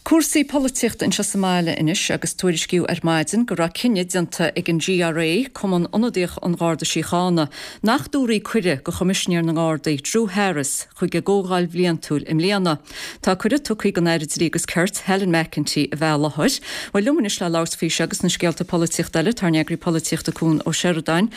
Cúrsaí polaitíochta anseo sa mbaile anois agus tuairiscíodh ar maidin go raibh cinneadh déanta ag an GRA, Cumann Ionadaíoch an Gharda Síochána, nach dtabharfaí cuireadh do Choimisinéir na nGardaí, Drew Harris, chuig a gcomhdháil bhliantúil i mbliana. Tá cuireadh tugtha don Aire Dlí agus Cirt, Helen McEntee, a bheith i láthair. Bhuel, liom anois le labhairt faoi seo agus na scéalta polaitíochta eile, tá ár n-eagraí polaitíochta Cuan Ó Seireadáin.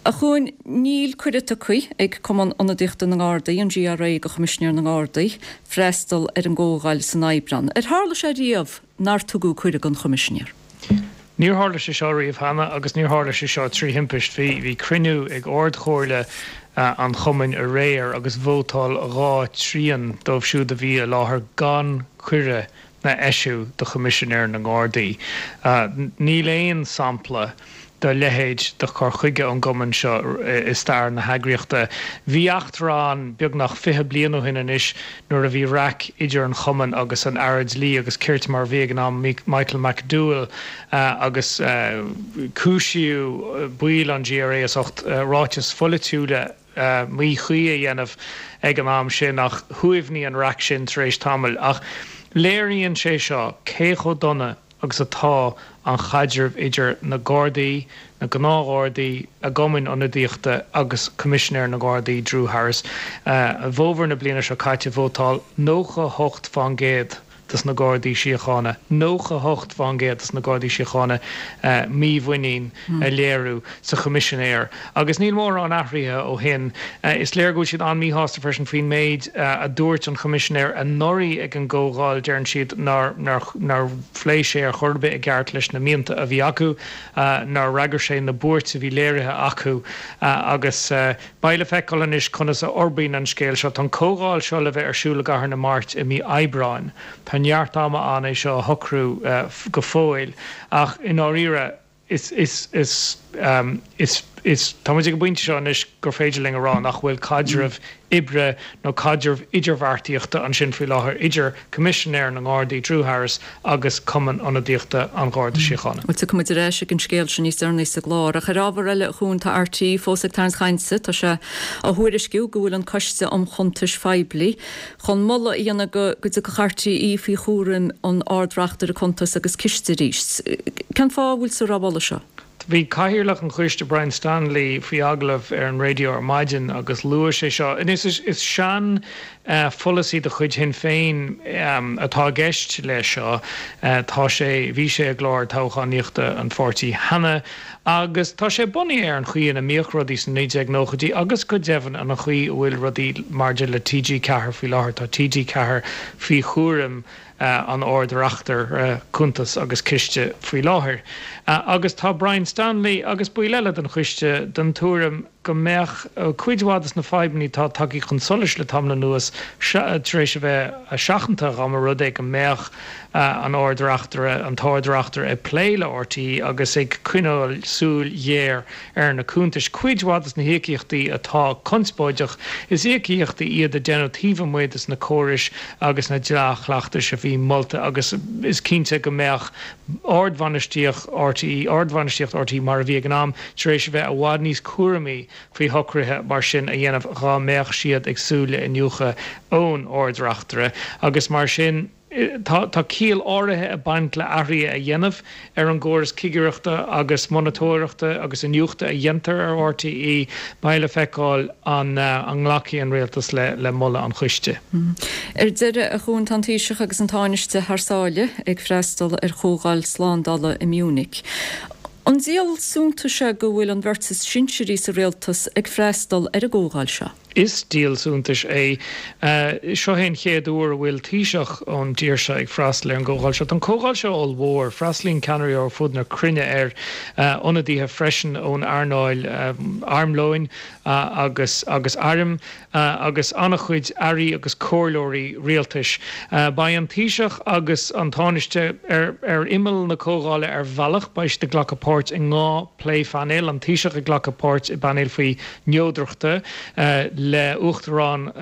A Chuain, níl cuireadh tugtha ag Cumann Ionadaíochta na nGardaí, an GRA, do Choimisinéir na nGardaí, freastal ar an gcomhdháil san Aibreán. Ar tharla sé riamh nár tugadh cuireadh don Choimisinéir? Níor tharla sé seo riamh cheana agus níor tharla sé seo trí thimpist. Bhí bhí cruinniú ag Ard-Chomhairle an chumainn aréir agus vótáil 2 trian dóibh siúd a bhí i láthair gan cuireadh a eisiú do Choimisinéir na nGardaí. Níl aon sampla dá leithéid de chur chuige ón gcumann seo i stair na heagraíochta. Bhí eachtra ann beagnach 20 bliain ó shin anois nuair a bhí raic idir an chumann agus an Aire Dlí agus Cirt mar a bhí ag an am, Michael McDowell, agus cúisíodh baill an GRA as ucht ráitis pholaitiúla míchuí a dhéanamh ag an am sin ach shuaimhnigh an raic sin tar éis tamaill. Ach léiríonn sé seo cé chomh dona agus atá an chaidreamh idir na Gardaí, na gnáthghardaí, a gcumainn ionadaíochta agus Coimisinéir na nGardaí, Drew Harris. I bhfómhar na bliana seo caite vótáil 98 fán gcéad dos na Gardaí Síochána, 98 fán gcéad dos na Gardaí Síochána mímhuinín a léiriú sa Choimisinéir agus níl mórán athraithe ó shin. Is léir go bhfuil siad an-míshásta freisin faoin méid a dúirt an Choimisinéir anuraidh ag an gcomhdháil, deireann siad nár nár phléigh sé ar chor ar bith i gceart leis na mianta a bhí acu, nár fhreagair sé na buairt a bhí léirithe acu agus beidh le feiceáil anois conas a fhorbraíonn an scéal seo. Tá an comhdháil seo le bheith ar siúl i gCathair na Mart i mí Aibreáin. Tá neart ama ann é seo a shocrú go fóill ach i ndáiríre is, is, is, is, is, tá muid ag an bpointe seo anois gur féidir linn a rá nach bhfuil caidreamh oibre nó caidreamh idirbheartaíochta ansin faoi láthair idir Coimisinéir na nGardaí, Drew Harris, agus Cumann Ionadaíochta an Gharda Síochána. Bhuel, tiocfaidh muid ar ais ag an scéal sin níos deireanaí sa gclár. Ach ar ábhar eile, a Chuain, tá RTÉ fós ag tarraingt chainte. Tá sé á thuairisciú go bhfuil an Coiste um Chuntais Phoiblí chun moladh a dhéanamh go dtiocfadh RTÉ faoi chúram an Ard-Reachtaire Cuntas agus Ciste arís. Cén fáth a bhfuiltear á mholadh seo? Bhí Cathaoirleach an Choiste, Brian Stanley, faoi agallamh ar an raidió ar maidin agus luaigh sé seo. Anois, is sean pholasaí de chuid Shinn Féin atá i gceist leis seo. Tá sé, bhí sé i gclár toghchánaíochta an pháirtí cheana agus tá sé bunaithe ar an chaoi ina mbíodh rudaí sna 1990idí agus go deimhin an chaoi a bhfuil rudaí maidir le TG4 faoi láthair. Tá TG4 faoi chúram an Ard-Reachtaire Cuntas agus Ciste faoi láthair agus tá Brian Stanley agus baill eile den choiste den tuairim go mbeadh cuid mhaith de na fadhbanna atá tagtha chun solais le tamall anuas tar éis a bheith seachanta dá mba rud é go mbeadh an Ard-Reachtaire, an tArd-Reachtaire ag plé le RTÉ agus ag coinneáil súil ghéar ar na cuntais. Cuid mhaith de na híocaíochtaí atá conspóideach, is íocaíochtaí iad a deineadh taobh amuigh de na córais agus na dea-chleachtais a bhí molta agus is cinnte go mbeadh ardbhainistíocht RTÉ, ardbhainistíocht RTÉ mar a bhí ag an am, tar éis a bheith i bhfad níos cúramaí faoi shocruithe mar sin a dhéanamh dhá mbeadh siad ag súil le iniúchadh ón Ard-Reachtaire agus mar sin. Tá ciall áirithe ag baint le athruithe a dhéanamh ar an gcóras cigireachta agus monatóireachta agus iniúchta a dhéantar ar RTÉ. Beidh le feiceáil an nglacfaidh an Rialtas le moladh an choiste. Ar deireadh, a Chuain, tá an Taoiseach agus an Tánaiste thar sáile ag freastal ar chomhdháil slándála i Munich. An díol suntais é go bhfuil an bheirt is sinsearaí sa rialtas ag freastal ar an gcomhdháil seo? Is díol suntais é. Seo é an chéad uair a bhfuil Taoiseach ón dtír seo ag freastal ar an gcomhdháil seo. Tá an comhdháil seo ollmhór. Freastalaíonn ceannairí ó ar fud na cruinne air, ionadaithe freisin ón earnáil armlóin agus agus airm agus an-chuid airí agus comhairleoirí rialtais. Beidh an Taoiseach agus an Tánaiste ar ar imeall na comhdhála ar bhealach. Beidh siad ag glacadh páirt i ndhá pléphainéal, an Taoiseach ag glacadh páirt i bpainéal faoi neodrachta le Uachtarán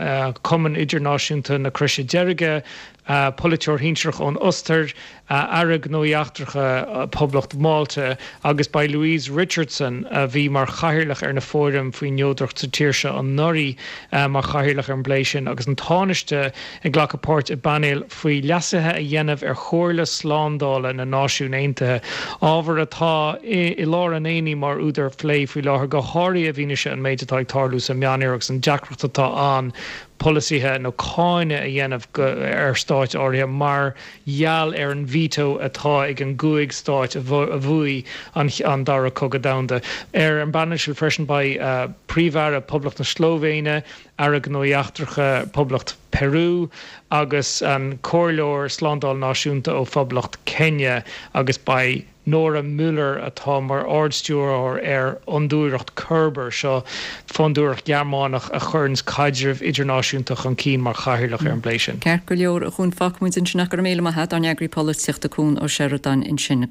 Chumann Idirnáisiúnta na Croise Deirge. Polaiteoir shinsearach ón Ostair, Aire Gnóthaí Eachtracha Poblacht Mhálta, agus beidh Louise Richardson, a bhí mar chathaoirleach ar na fóraim faoin neodracht sa tír seo anuraidh, mar chathaoirleach ar an bplé sin, agus an Tánaiste ag glacadh páirt i bpainéal faoi leasuithe a dhéanamh ar Chomhairle Slándála na Náisiún Aontaithe, ábhar atá i lár an aonaigh mar údar phlé faoi láthair, go háirithe i bhfianaise an méid atá ag tarlú sa Meánoirthear agus an deacracht atá ann polasaithe nó cáineadh a dhéanamh ar stáit áirithe mar gheall ar an veto atá ag an gcúig stáit a bhuaigh an Dara Cogadh Domhanda. Ar an bpainéal sin freisin beidh Príomh-Aire Poblacht na Slóivéine, Aire Gnóthaí Eachtracha Poblacht Peru agus an Comhairleoir Slándála Náisiúnta ó Phoblacht Kenya agus beidh Nora Müller atá mar Ard-Stiúrthóir ar Fhondúireacht Körber, seo fondúireacht Ghearmánach a chuireanns caidreamh idirnáisiúnta chun cinn mar chathaoirleach ar an bplé sin. Ceart go leor, a Chuain, fágfaimid ansin ach go raibh míle maith a't, ár n-eagraí polaitíochta Cuan Ó Seireadáin ansin.